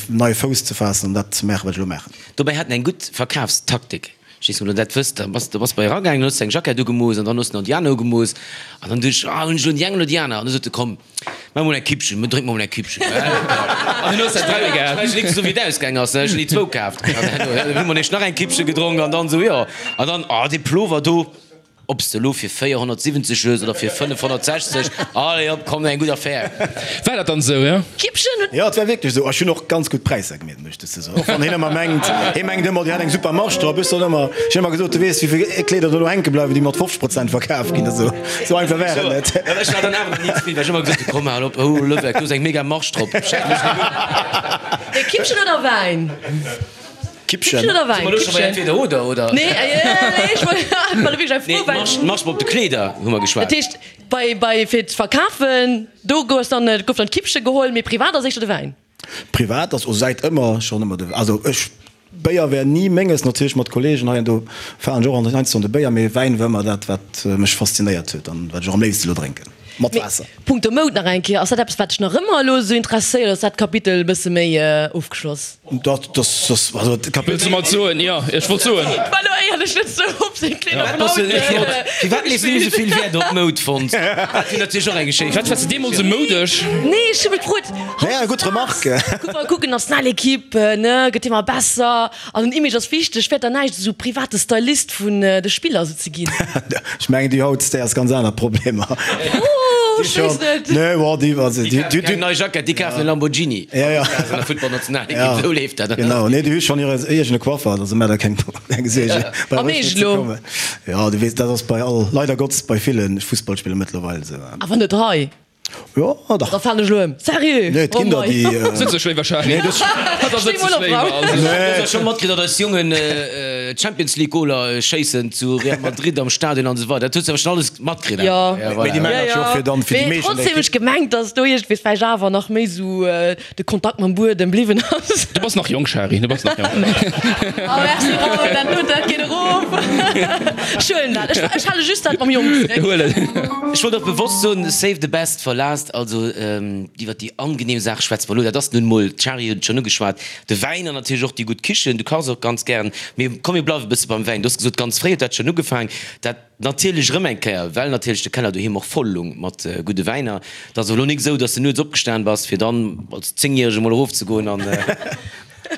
neie Fouss ze faassen an dat ze maachen, wat ech elo maachen. Dobäi hat en eng gutt Verkafstaktik. Ech weess net, ob der dat wësst. Da bass de bass bei eragaangen, dann hues de eng Jackett ugemooss an dann hues de nach déi aner ugemooss. An dann duecht ech, ah, hunn ech elo déi eng oder déi aner? An du sot e, komm, maach mol eng Kippchen, mir drénke mol eng Kippchen. An dunn hues de dräi gehat. Ech weess net esou, wéi et ausgaang ass, ech hunn déi zwou kaaft. An dann hu mer nämlech nach eng Kippche gedronk an dann esou, jo. An dann, ah, dee Plover do. Ob s de elo fir 470 hues oder fir 560, allez hop, komm, eng gutt Affär. War dat dann esou, jo? Kippchen huet. Jo, et war wierklech esou. Ech hunn och ganz gutt Präisser gemeet, muss ech dozou soen. Och wann hien ëmmer mengt, hie mengt ëmmer, dir hätt eng super Marge drop. Ech soen ëmmer, ech hunn ëmmer gesot, du weess, wéi vill Kleeder do elo hänke bleiwen, déi mat 50 Prozent verkaf ginn. Esou, esou einfach war et net. Ech war dann awer nach ni zefridden, well ech ëmmer gesot hunn, komm, hal op, hou, Lëweck, do ass eng mega Marge drop. Schenk mech net un. Mee Kippchen oder Wäin? Kippchen. Kippchen oder Wäin? Si mer elo scho bei entweder oder, oder? Nee, nee, ech wollt war wierklech eng Fro, Nee, well. d'Marge, d'Marge op de Kleeder hu mer geschwat. Dat heescht, bei, bei, fir z'verkafen, do gouf dann, gouf dann d'Kippche geholl, mee privat ass éischter de Wäin. Privat ass o säit ëmmer schonn ëmmer de, also ech, Béier wär ni menges, natierlech mat Kollegen hei an do fahren ech och heiansdo an de Béier, mee Wäin war ëmmer dat, wat mech faszinéiert huet an wat ech och am léifste lo drénken, mat Mee Waasser. punkto Moud nach eng Kéier, ass dat eppes, wat dech nach ëmmer elo esou interesséiert, oder ass dat Kapitel e bësse méi ofgeschloss? Dat, das, das, also d'Kapitel. Wëlls de mer soen? Jo, ech wollt soen. War lo éierlech net sou op seng Kleeder vun haut. Firwat lees du net esou vill Wäert op Moud, fonnt? Dat wier natierlech och eng Geschicht. Wat wars de deemools esou moudesch? Nee, ech hu mech gefrot, Ja, gutt Remarque. Kuck mol, kucken, Nationalequipe, ne, gëtt ëmmer besser an den Image ass wichteg. Wäert dann näischt esou private Stylist vun de Spiller esou ze ginn? Ech mengen, déi haut, déi has ganz aner Problemer. Oh, ech weess net. Nee, bon, déi, also, Déi kafen keng nei Jackett, déi kafen e Lamborghini. Ja, ja. An der Footballnationalekipp, esou leeft dat. Genau, nee, déi hu schonn hire eegene Coiffer, also maach der keng, keng Suergen. A méi ech elo? Ja, du weess, dat ass bei all, leider Gottes, bei ville Fussballspiller mëttlerweil esou. Awer net hei. Jo, dach. Da falen ech elo ëm. Sérieux? Nee, et ginn der, déi. Sëtz ech léiwer, Charly. Nee, dës. Da sëtz ech léiwer, also. Du hues jo scho matkritt, datt eis Jongen Champions League Goler schéissen zu Real Madrid am Stadion an esou weider. Dat hues du awer schonn alles matkritt, Jo. awer? Mee déi maachen dat jo och fir dann, fir déi Mee meescht an der trotzdem hu ech Ekipp. gemengt, datt do iergendwéi vläicht awer nach méi esou de Kontakt mam Buedem bliwwen ass. Du bass nach jonk, Shari, du bass nach jonk. Oh merci Raoul, dat dote dat geet erof. Ech huelen dat, ech ech hale just dat mam Jong zréck. Huel et. Ech wollt och bewosst soen, save the best for last, also iwwert déi angenehm Saache schwätze mer elo, dat ass nun emol, d'Shari huet et schonn ugeschwat, de Wäin an natierlech och déi gutt Kichen, du kachs och ganz gären. Mee komm mir bleiwe bësse beim Wäin. Du hues gesot, ganz fréi huet dat schonn ugefaang, dat Natierlech erëm eng Kéier, well natierlech de Keller doheem och voll lung mat gudde Wäiner. Et ass elo nik esou, dass de nuets opgestan bass, fir dann als Zéngjärege mol erofzegoen an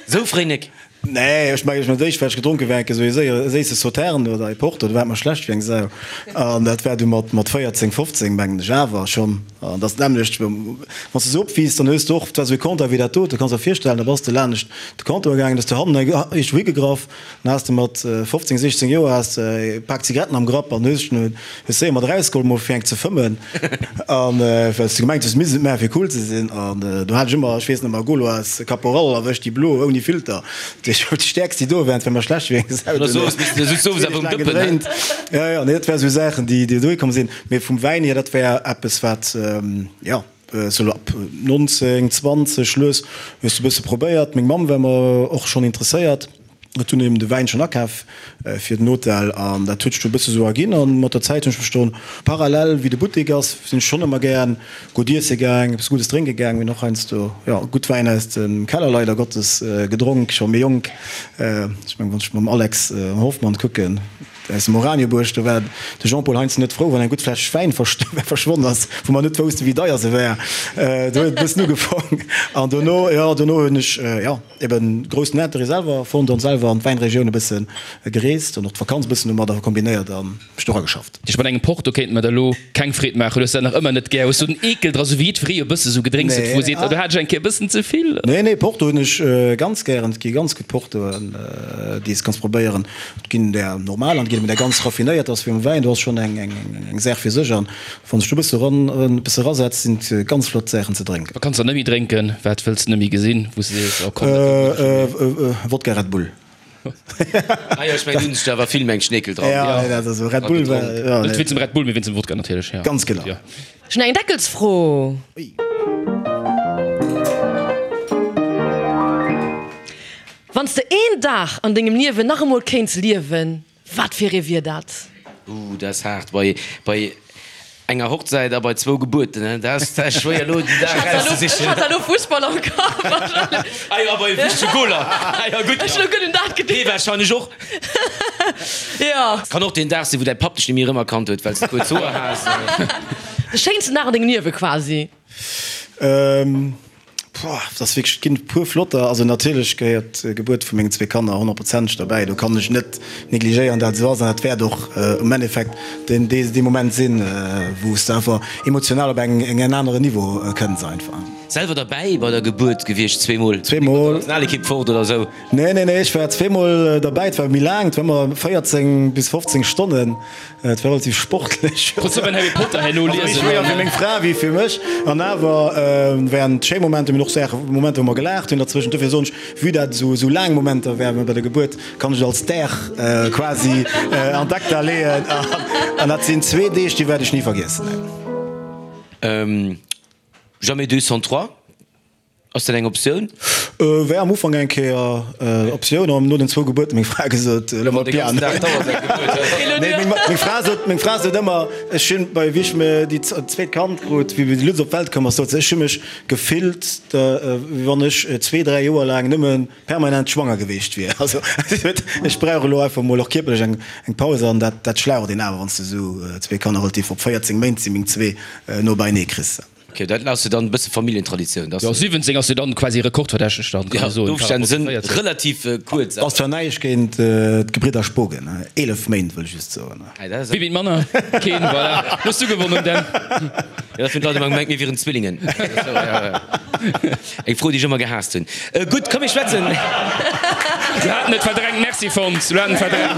esou fréi nik. Nee, ech mengen, ech hunn d'éischt, wat ech gedronk hunn, war enke sou ee séiere, séisse Sauternes oder ee Porto, do war et mer schlecht wéi eng Sau. An dat war du mat, mat 14, 15, mengen ech, awer schonn. An dat ass d'nämmlecht, wann s de sou opwiisst, dann hues de och, et war sou ee Comptoir wéi dat do, du kanns der virstellen, da bass de laanescht de Comptoir gaangen, hues de hannen iergendwou higegraff, Dann has de mat 15, 16 Joer has de e Pak Zigaretten am Grapp an hues hues séier mat erausgeholl mol fir eng ze fëmmen an well s de gemengt hues misst et maachen fir cool ze sinn. An do hat ech ëmmer, ech weess nach mar Gauloise Caporal erwëscht, déi blo ouni Filter, déi déi stäerkst déi do waren, et war mer schlecht wéi eng Sau duerno. Gedréint. Jo jo, nee dat war sou Saachen déi déi dohi komm sinn. Mee vum Wäin hier, dat war eppes wat jo. Sou ab 19, 20 lues hues de bësse probéiert. Meng Mamm war mer och schonn interesséiert, huet dunn eben de Wäin schonn akaf fir den Hotel an dat huet sech du e bësse sou erginn. An mat der Zäit hunn ech mech dann parallel wéi de Buttek ass, sinn ech schonn ëmmer gären gutt iesse gaang, eppes Guddes drénke gaang. Mir hunn och heiansdo, jo, gutt Wäin aus dem Keller leider Gottes gedronk, scho méi jonk. Ech mengen, wann ech mam Alex Hoffmann kucken, Aus dem Oranjebuerg, do war de Jean-Paul Heinzen net frou, wann eng gutt Fläsch Wäin verschwonn ass, wou mer net woussten, wéi deier se war. Do huet et e bëssen ugefaang. An dono, jo, dono hunn ech, jo, eben groussen Interêt selwer fonnt an selwer an d'Wäinregioun e bësse gereest an och d'Vakanz e bëssen domadder kombinéiert a mech do erageschafft. Ech mat engem Porto kéint mer der elo keng Freed maachen. Du hues dat nach ëmmer net gär. Hues du den Eekel dra, sou wéi jiddweree e bësse sou Gedrénks huet, wou e seet, oh do hat ech eng Kéier e bëssen ze vill? Nee, nee, Porto hunn ech ganz gären. Et gi ganz gutt Portoen, déi s kanns probéieren. Et ginn där normal an et ginn eben där ganz raffinéiert, ass wéi mam Wäin, do ass schonn eng eng Saach fir sech an wann sech do e bësse ran e bësse rasetzt, sinn et ganz flott Saachen ze drénken. Wat kanns de net méi drénken? Wat wëlls de net méi gesinn, wou s de sees, oh komm, dat doten ech net méi? Wodka Red Bull. Ah jo, ech mengen, do hunn sech der awer vill méi eng Schneekel dran. Ja, nee, dat ass esou Red Bull war, jo, Net wéinst dem Red Bull, mee wéinst dem Wodka natierlech, jo. Ganz genau. Jo. Ech hunn eng Deckelsfro. Ui. Wann s de een Dag an dengem Liewen nach emol kéints liewen, wat fir ee wier dat? Ooh, dat ass haart. Bei, bei enger Hochzäit a bei zwou Gebuerten, hein, dat ass, dat ass schwéier elo den Dag erauszesichen. Ech hat elo Fussball am Kapp. Ah jo, a bei wichtege Goler. Ah jo, gutt. Ech hunn elo gutt un dat geduecht. Dee warscheinlech och. Jo. Kann och deen Dag sinn, wou däi Papp dech net méi erëmerkannt huet, well s de kuerz Hoer has. De schéinsten Dag an dengem Liewe quasi. Pouah, dat ass wierklech, et ginn e puer flotter. Also natierlech gehéiert d'Gebuert vu mengen zwee Kanner honnertprozenteg derbäi. Do kann ech net negligéieren, dat esou ass. An dat wäert och am Endeffekt deen, dee Moment sinn, wou s de einfach emotional op eng, en aneren Niveau kënns einfach. Selwer derbäi bei der Gebuert gewiescht? Zweemol? Zweemol. Nationalekipp fort oder esou? Nee, nee, nee, ech war zweemol derbäi. Et war méi laang, et war ëmmer 14 bis 15 Stonnen. Et war relativ sportlech. Konns du beim Harry Potter herno liesen? Méi schwéier fir meng Fra wéi fir mech. An awer waren et schéi Momenter, mir hunn och Saachen, Momenter wou mer gelaacht hunn derzwëschent. Dofir soen ech, vue dat et esou laang Momenter waren bei der Gebuert, kann ech et als Dag quasi an d'Acta leeën. An dat sinn zwee Deeg, déi wäert ech ni vergiessen. Jamais deux sans trois. Ass dat eng Optioun? War am Ufank eng Kéier Optioun, an no den zwou Gebuerten meng Fra gesot, elo mat Piano. Nee, meng Fra sot, meng Fra sot ëmmer, ech hunn bei, wéi ech mir déi zweet Kand krut, wéi de Lutz op d'Welt koum ass, sot se, ech hu mech gefillt, wéi wann ech zwee, dräi Joer laang nëmme permanent schwanger geweecht wier. Also si sot, ech brauch elo einfach mol och kierperlech eng eng Paus, an dat dat schlaucht een awer, wann s de esou zwee Kanner relativ op 14 Méint si meng zwee no beienee kriss. Ok, dat ass jo dann e bësse Familljentraditioun, dass. Jo, 17 ass jo dann quasi rekordverdächteg dann, kann ee soen. D'Ofstänn sënn relativ kuerz. Ass zwar näischt géint d'Gebridder Spogen, 11 Méint wëll ech just soen. Wie wint manner? Keen, voilà. Lo hues du gewonnen, Dan. Jo, dat hunn d'Leit ëmmer gemengt, mir wieren Zwillingen. Eng Fro, déi ech ëmmer gehaasst hunn. Gutt, komm mir schwätzen. Du haten et verdrängt, merci Fons, du haten et verdrängt.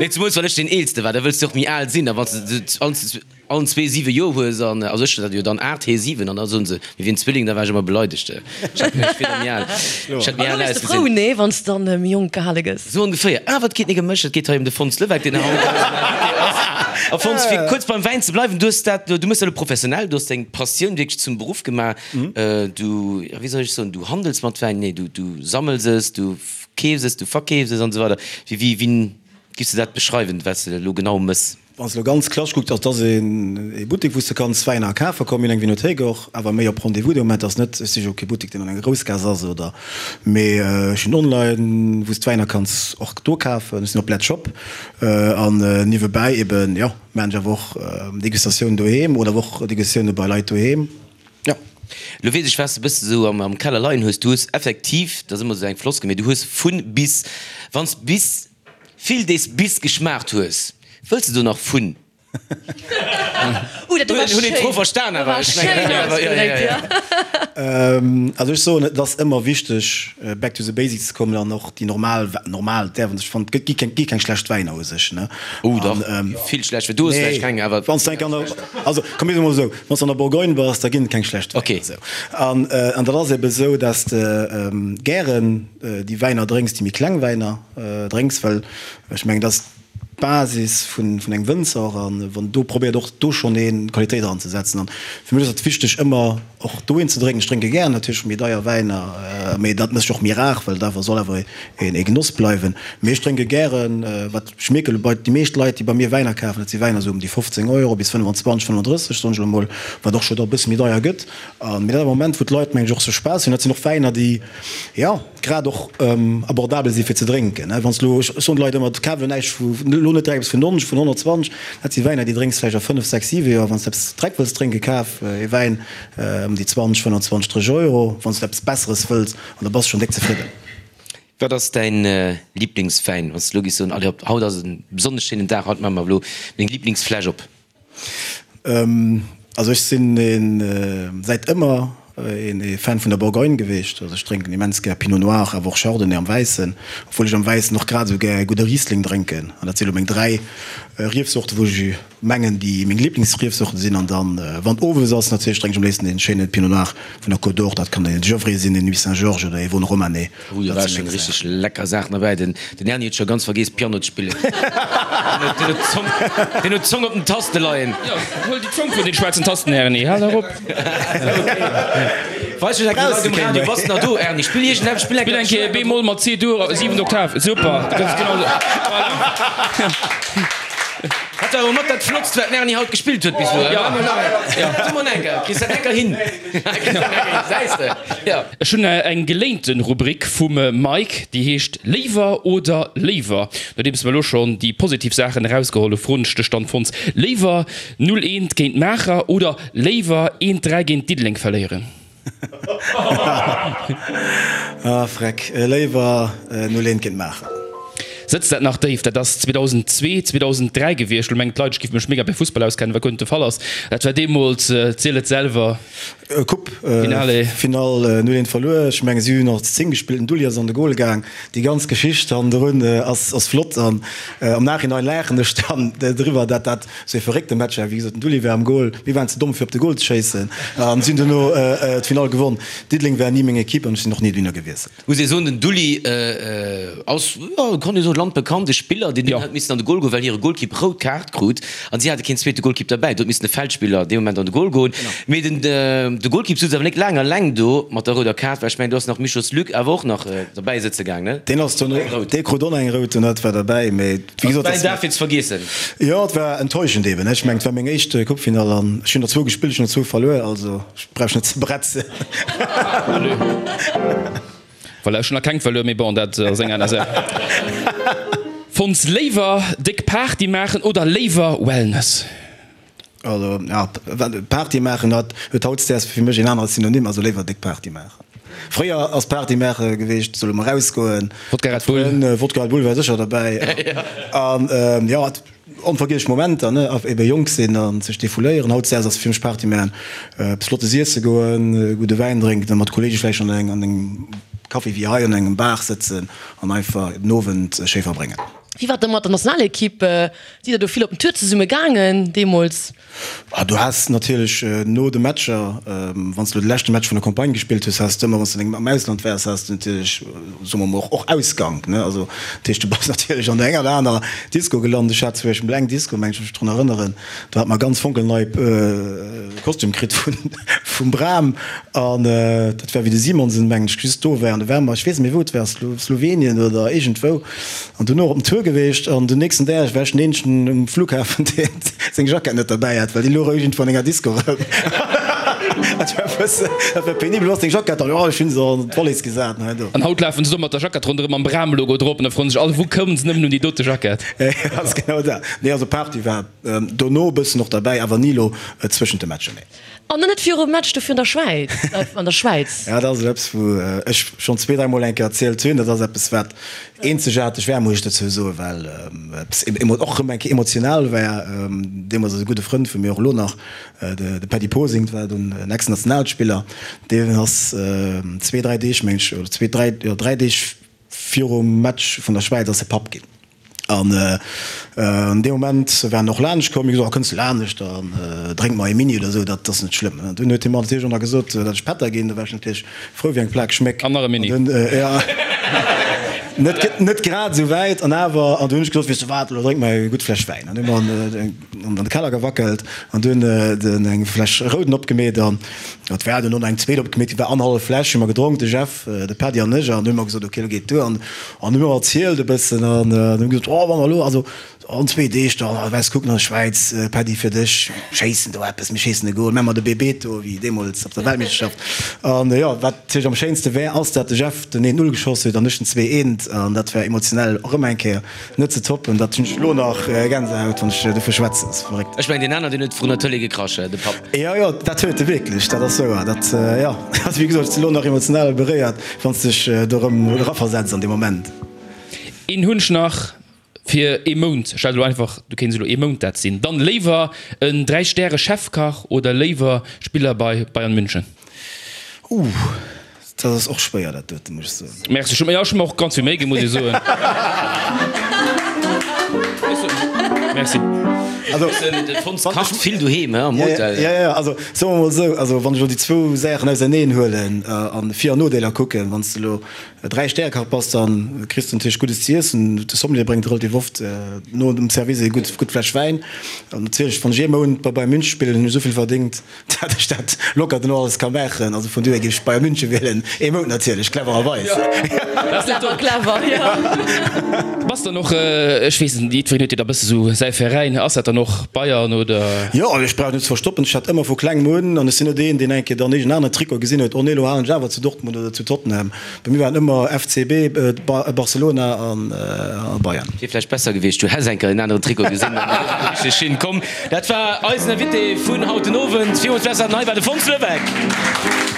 Nee, zemools well ech deen Eelste war, da wëlls de och méi al sinn, a wann s de Allen zwee 7 Joer hues an also ech dat jo dann 8, hee 7 an da soen se mir wieren Zwilling, da war ech ëmmer beleidegt. Ech hat mech wier da méi al, ech hätt méi An al da wérs de frou, ausgesinn. nee, wann s dann méi jonk gehale gëss? Sou ongeféier. Awer et geet nik ëm mech, et geet hei ëm de Fons Levesque, deen haut eisen Invité ass. A Fons, fir kuerz beim Wäin ze bleiwen, du hues dat, du méchs dat elo professionell, du hues deng Passioun wierklech zum Beruff gemaach. Du, ja wéi soll ech soen, du handels mat Wäin, nee, du, du sammels es, du keefs es, du verkeefs es an esou weider. Wéi, wéi, wéi giffs de dat beschreiwen, wat s de elo genau mëss? Wann s de elo ganz klassesch kucks, ass dass ee Buttek, wou s de kanns Wäiner kafe kommen. Mir hunn eng Vinothéik och, awer méi op Rendez-vous de Moment. Ass net, ech si jo kee Buttek, deen an enger Groussgaass ass oder, mee ech hunn online, wou s d'Wäiner kanns och do kafen. Ech sinn op Letzshop an niewebäi eben, jo, maachen ech awer och Degustatiounen doheem oder awer och Degustatioune bei Leit doheem, jo. Lo weess ech, wat s de bësse sou am Keller leien hues. Du hues effektiv, dat ass ëmmer sou eng Floskel, mee du hues vun bis. Wann s bis Vill dees bis geschmaacht hues, wëlls de do nach vun? Uh, dat do war Hunn een d'Fro schéin. verstan Dat awer? war Ech mengen, schéin jo, jo, ausgedréckt, jo, ja. jo. Also ech soen, et ass ëmmer wichteg back to the basics ze kommen an och déi normal, normal däerf een sech, fannen, et gi keng, gi keng schlecht Wäiner u sech, ne? Oh dach, An, vill schlecht, du hues nee, vläicht keng, awer. Wann s de eng an der, also komm mir soe mol esou, wann s de an der Bourgogne bass, da ginn et keng schlecht Wäiner. Okay. Esou. An, an dat ass ebe esou, dass de gären déi Wäiner drénks, déi méi kleng Wäiner, Drénks, well ech mengen, dat ass d'Basis vun engem Wënzer och, an wann do probéiert och do schonn ee Qualitéit eranzesetzen. An fir mech ass et wichteg ëmmer och dohin ze drénken. Ech drénke gären natierlech méi deier Wäiner, mee dat mécht och méi rar, well et awer soll awer ee Genoss bleiwen. Mee ech drénke gären, wat ech mierke bei déi meescht Leit, déi bei mir Wäiner kafen, dat si Wäiner esou ëm déi 15 Euro bis 25, 35, soen ech elo mol, wat och scho da e bësse méi deier gëtt. Mee dat ass e Moment, wou d'Leit, mengen ech, och sech Spaass hunn. Dat sinn och Wäiner, déi, jo, grad och abordabel si fir ze drénken. Wann s elo, ech soen de Leit ëmmer, kaf elo näischt vu, elo net direkt eppes vun 90, vun 120, dat si Wäiner, déi drénks vläicht a 5, 6, 7 Joer. Wann s de eppes direkt wëlls drénken, kaf ee Wäin ëm déi 20, 25, 30 Euro, wann s de eppes Besseres wëlls, an da bass de schonn déck zefridden. Wat ass däin Liblingswäin, wann s de elo giss soen, allez hop, haut ass e besonnesch schéinen Dag, haut maache mer elo meng Liblingsfläsch op? Also ech sinn een säit ëmmer een Fan vun der Bourgogne geweecht. Also ech drénken immens gär Pinot Noir, awer och Chardonnay am Wäissen, obwuel ech am Wäissen och grad esou gär ee gudde Riesling drénken. An dat si lo meng 3 Riefsorten, wou ech mengen déi meng Liblingsriefsorten sinn. An dann wann owes ass natierlech drénk ech am léifsten een schéine Pinot Noir vun der Côte d'Or. Dat kann een Gevrey sinn, een Nuits-Saint-Georges oder ee Vosne-Romanée. Oh, do war schon richteg lecker Saachen derbäi. Den Erny huet scho ganz vergeess Piano ze spillen. Den huet d'Zong, den huet d'Zong op den Taste leien. Jo, huel déi Zong vun den schwaarzen Tasten, Erny, hal erop. Weis mech eng Kéier Leit um Radio, bass nach do, Erny? Spill iergendeppes, spill eng Spill eng Kéier B-Moll mat C-Dur, siwent Oktav, super, du kanns genau esou, voilà. Dat war awer mat dat Flottst, wat den Erny haut gespillt huet bis elo. Ja. So mol eng Kéier, kriss dat eng Kéier hin? Ech hunn eng geléinte Rubrik vum Mike, déi heescht Léiwer oder léiwer. Nodeems mer elo schonn déi positiv Saachen erausgeholl hu froen ech dech dann, Fons, Léiwer 0, 1 géint Maacher oder léiwer 1, 3 géint Diddeleng verléieren? Ah freck, léiwer 0 1 géint Maacher. Sëtzt dat nach déif? Dat ass 2002, 2003 gewiescht. Lo mengen d'Leit, ech giff mech mega bei Fussball auskennen, wat guer net de Fall ass. Dat war deemools, ziel et selwer. Coupe Finale 0 1 verluer. Ech mengen si hunn och zu 10 gespillt, den Dulli ass an de Goal gaang. Déi ganz Geschicht hannendrun ass flott an am Nachhinein laachen ech dann driwwer, dat dat sou ee verréckte Match war. Wéi gesot, den Dulli war am Goal, mir waren ze domm fir op de Goal ze schéissen an si hunn duerno d'Finall gewonn. Diddeleng war ni meng Equipe an ech sinn och ni dohinner gewiesselt. Muss ee soen, den Dulli ass, jo, kann ee soen, landbekannte Spiller, deen dunn hat missen an de Goal goen, well hire Golkipp rout Kaart krut an si hate keen zweete Golkipp derbäi. Do huet missen e Feldspiller dee Moment an de Goal goen. Mee den de Golkipp sutz awer nik laang alleng do mat der rouder Kaart, well ech mengen, do ass nach Michos Luc awer och nach derbäi sëtze gaang, ne? Deen ass dunn, dee krut och nach eng rout, dat war derbäi, mee wéi gesot, dat war een Dag fir ze vergiessen. Jo, et war enttäuschend eben. Ech mengen, et war meng éischt Coupefinall an ech hunn der zwou gespillt, ech hunn der zwou verluer, also. Ech brauch net ze bretzen. Voilà, ech hunn nach keng verluer, mee bon, dat ass eng aner Saach. Fons, léiwer déck Party maachen oder léiwer Wellness? Also, ja, Party maachen hat huet hautdesdaags fir mech een anere Synonym, also léiwer déck Party maachen. Fréier ass Party maache geweecht, solle mer erausgoen, Wodka Red Bull. Wodka Red Bull war sécher derbäi. An jo, Onvergiesslech Momenter, ne? Ebe jonk sinn a sech defouléieren. Hautdesdaags ass fir mech Party maachen, eppes Flottes iesse goen, gudde Wäin drénken a mat Kolleege vläicht an engem Café wéi hei an engem Bar sëtzen an einfach den Owend schéi verbréngen. Wéi war et da mat der Nationalequipe? Sidd der do vill op den Tour zesumme gaangen deemools? Ah, du has natierlech no de Matcher, wann s de elo de leschte Match vun der Campagne gespillt hues, has de ëmmer, wann s de am Ausland waars, has de natierlech, soe mer mol, och Ausgank, ne? Also, dat heescht, du bass natierlech an der enger oder aner Disco gelant. Ech hat zum Beispill eng Disco, mengen ech mech drun erënneren, do hat mer ganz fonkelnei Kostüm kritt vun, vum Bram an dat war wéi de Simonsen, mengen ech, just do war an do ware mer, ech weess net méi wou et war, Slowenien oder iergendwou. An dunn och op den Tour geweecht an den nächsten Dag war ech den eenzegen um Flughafen deen seng Jackett net derbäi hat, well déi louch iergendwou an enger Disco erëm. Dat war e bëssen, dat war penibel. Wo ass deng Jackett? An jo, ech hunn se an d'Wallis gesat an hei do. An haut lafen se do mat der Jackett ronderëm mam Bram-Logo drop an da froen sech all, wou koumen se nëmmen un déi dote Jackett? Jo, ass genau dat. Nee, also Party war dono e bëssen och derbäi, awer ni elo zwëschent de Matcher, nee. An dann net virum Match do virun der Schwäiz, an der Schwäiz. Ja, dat ass eppes, wou ech schonn zwee, dräimol eng Kéier erzielt hunn. Dat ass eppes, wat eenzegaarteg war, muss ech dozou soen, well eppes och erëm eng Kéier emotional war. Deemools ass e gudde Frënd vu mir, och elo nach, de Paddy Posing, dat war dunn en Ex-Nationalspiller, deen ass zwee, dräi Deeg, meng ech, oder zwee, dräi, jo dräi Deeg virum Match vun der Schwäiz ass e Papp ginn. An an deem Moment war en och laanscht komm, mir gesot, oh kënns de laanscht, dann drénke mer ee Mini oder esou, dat ass net schlëmm. An dunn huet hie mer natierlech och nach gesot, datt ech Pätter ginn, do war ech natierlech frou wéi eng Plak Schméck. An nach e Mini. An dunn, jo, net net grad esou wäit, an awer, an dunn hunn ech gesot, weess de wat, elo drénke mer eng gutt Fläsch Wäin. An hu mer an de Keller gewackelt an dunn eng Fläsch Rouden opgemeet an et war dunn och nach eng zweet opgemeet, déi war annerhallef Fläsch hu mer gedronk, de Jeff, de Paddy an ech, an dunn hu mer gesot, ok, elo geet et duer. An An hu mer erzielt e bëssen an hunn gesot, oh wa mer elo, also an zwee Deeg da wäss kucken an der Schwäiz, Paddy fir dech, schéissen do eppes, mir schéissen e Goal, mä mer de Bebeto wéi deemools op der Weltmeeschterschaft. An jo, wat natierlech am schéinste wär, ass dat de Jeff den 1, 0 geschoss huet an ech den 2, 1 an dat war emotionell och ëmmer eng Kéier net ze toppen. Dat hunn ech elo nach Gänsehaut wann ech dovu schwätzen, ass verréckt. Ech mengen deen aner deen huet vrun der Tëlee gekrasch, de Papp. Jo, jo, dat huet e wierklech, dat ass wouer, dat jo, also wéi gesot, ech sinn elo nach emotional beréiert. Wann s dech do rëm eraversetz an dee Moment. Een hunn ech nach fir ee Mount, stell der elo einfach, du kéints elo ee Mount dat sinn, dann léiwer en 3 Stäre Chefkach oder léiwer Spiller bei Bayern München? Ooh, dat ass och schwéier dat doten, muss ech soen. Merci, ech hu mer och ganz vill Méi ginn, muss ech soen. Merci. Also, de Fons kacht vill doheem, he, am Hotel. Jo, jo, also soe mer mol esou, also wann ech elo déi zwou Saachen auserneen huelen an Vir an Nodeeler kucken, wann s de elo Dräi-Stäre-Kach bass, da kriss de natierlech Guddes ze iessen, de Sommelier bréngt relativ oft no dem Service eng gutt gutt Fläsch Wäin an natierlech wann ech ee Mount bei Bayern München spillen, hunn ech esou vill verdéngt, Dat ech dat locker dono alles ka maachen. Also vun dohier géif ech Bayern München wielen. Ee Mount natierlech, clevererweis. Clever, clever, jo. Bass dann och, ech weess net, jiddwereen huet jo da bësse sou säi Veräin. Ass dat dann och Bayern oder? Jo, ech brauch net ze verstoppen, ech hat ëmmer vu klengem un, an ech sinn net een, deen eng Kéier dann iergend en aneren Trikot gesinn huet, oh nee, elo halen ech awer zu Dortmund oder zu Tottenham. Bei mir waren ëmmer FCB, Barcelona a Bayern. Wier vläicht besser gewiescht, du häss eng Kéier en aneren Trikot gesinn an dann richteg schinn komm. Dat war eisen Invité vun haut den Owend. Villmools Merci an hei war de Fons Levesque.